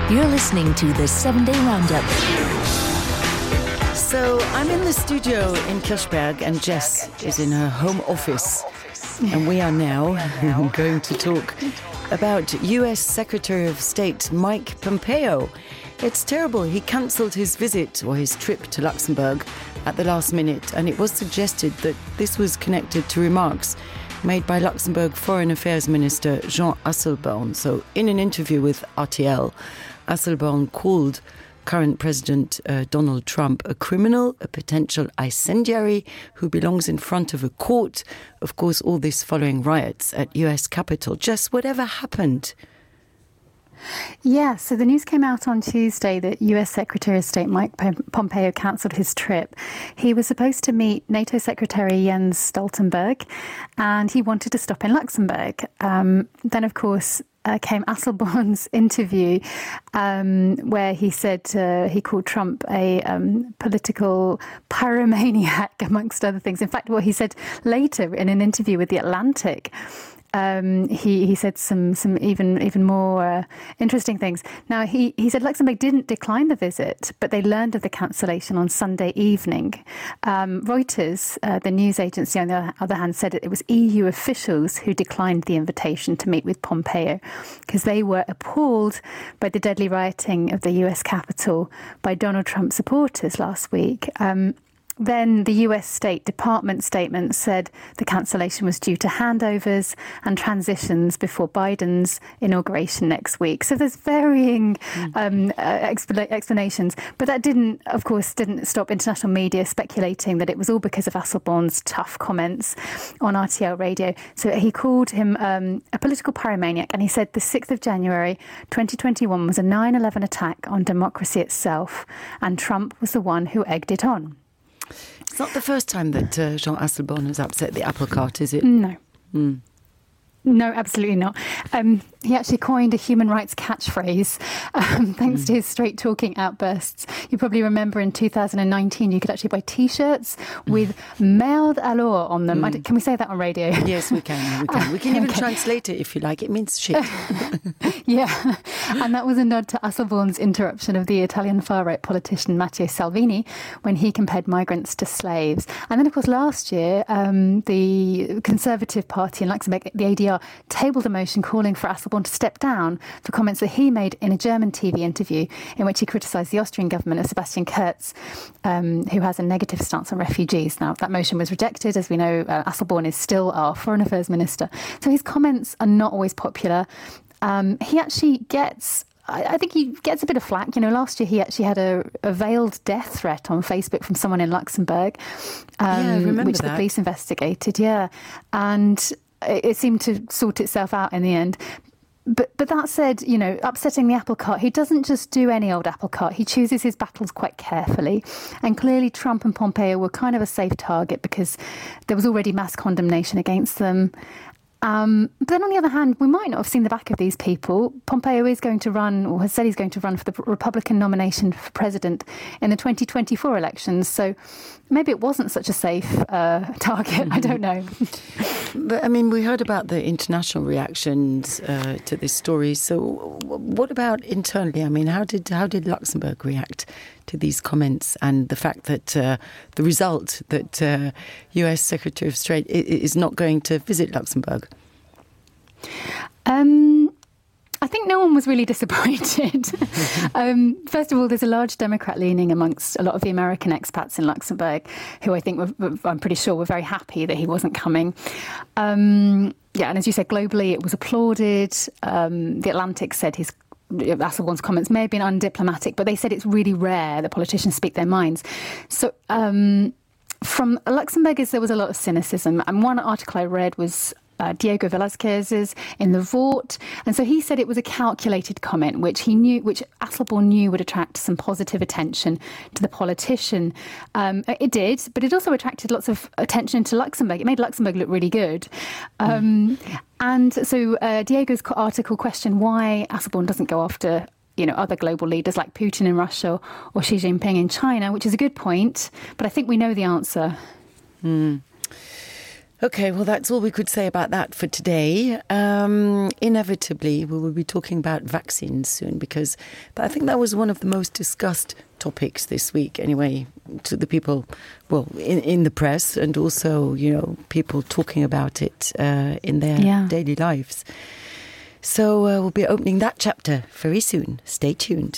You're listening to the 7-Day Roundup. So I'm in the studio in Kirchberg and Jess is in her home office. And we are now going to talk about US Secretary of State Mike Pompeo. It's terrible. He cancelled his visit or his trip to Luxembourg at the last minute, and it was suggested that this was connected to remarks made by Luxembourg Foreign Affairs Minister Jean Asselborn. So in an interview with RTL, Asselborn called current President Donald Trump a criminal, a potential incendiary who belongs in front of a court. Of course, all this following riots at US Capitol. Just whatever happened. Yeah, so the news came out on Tuesday that US Secretary of State Mike Pompeo cancelled his trip. He was supposed to meet NATO Secretary Jens Stoltenberg, and he wanted to stop in Luxembourg. Then, of course, came Asselborn's interview where he said he called Trump a political pyromaniac, amongst other things. In fact, what he said later in an interview with The Atlantic, he said some even more interesting things. Now, he said Luxembourg didn't decline the visit, but they learned of the cancellation on Sunday evening. Reuters, the news agency, on the other hand, said it was EU officials who declined the invitation to meet with Pompeo because they were appalled by the deadly rioting of the US Capitol by Donald Trump supporters last week. Then the US State Department statement said the cancellation was due to handovers and transitions before Biden's inauguration next week. So there's varying explanations. But that didn't stop international media speculating that it was all because of Asselborn's tough comments on RTL radio. So he called him a political pyromaniac, and he said the 6th of January 2021 was a 9/11 attack on democracy itself, and Trump was the one who egged it on. It's not the first time that Jean Asselborn has upset the apple cart, is it? No. No, absolutely not. He actually coined a human rights catchphrase thanks to his straight-talking outbursts. You probably remember in 2019 you could actually buy T-shirts with merde alors on them. Can we say that on radio? Yes, we can. We can even translate it if you like. It means shit. Yeah, and that was a nod to Asselborn's interruption of the Italian far-right politician Matteo Salvini when he compared migrants to slaves. And then, of course, last year, the Conservative Party in Luxembourg, the ADR, tabled a motion calling for Asselborn to step down for comments that he made in a German TV interview in which he criticised the Austrian government of Sebastian Kurz, who has a negative stance on refugees. Now, that motion was rejected. As we know, Asselborn is still our Foreign Affairs Minister. So his comments are not always popular. He actually I think he gets a bit of flack. You know, last year he actually had a veiled death threat on Facebook from someone in Luxembourg, which the police investigated. Yeah, and it seemed to sort itself out in the end. But that said, you know, upsetting the apple cart, he doesn't just do any old apple cart. He chooses his battles quite carefully. And clearly Trump and Pompeo were kind of a safe target because there was already mass condemnation against them. But then on the other hand, we might not have seen the back of these people. Pompeo is going to run, or has said he's going to run for the Republican nomination for president in the 2024 elections. So maybe it wasn't such a safe target. I don't know. But, I mean, we heard about the international reactions to this story. So what about internally? I mean, how did Luxembourg react to these comments and the fact that the result that US Secretary of State is not going to visit Luxembourg? I think no one was really disappointed. First of all, there's a large Democrat leaning amongst a lot of the American expats in Luxembourg, who I think I'm pretty sure were very happy that he wasn't coming. And as you said, globally it was applauded. The Atlantic said Asselborn's comments may have been undiplomatic, but they said it's really rare that politicians speak their minds. So from Luxembourgers, there was a lot of cynicism. And one article I read was Diego Velázquez's in The Vort. And so he said it was a calculated comment, which Asselborn knew would attract some positive attention to the politician. It did, but it also attracted lots of attention to Luxembourg. It made Luxembourg look really good. And so Diego's article questioned why Asselborn doesn't go after other global leaders like Putin in Russia or Xi Jinping in China, which is a good point. But I think we know the answer. Okay, well, that's all we could say about that for today. Inevitably, we will be talking about vaccines soon because I think that was one of the most discussed topics this week anyway, to the people, well, in the press and also, people talking about it in their daily lives. So we'll be opening that chapter very soon. Stay tuned.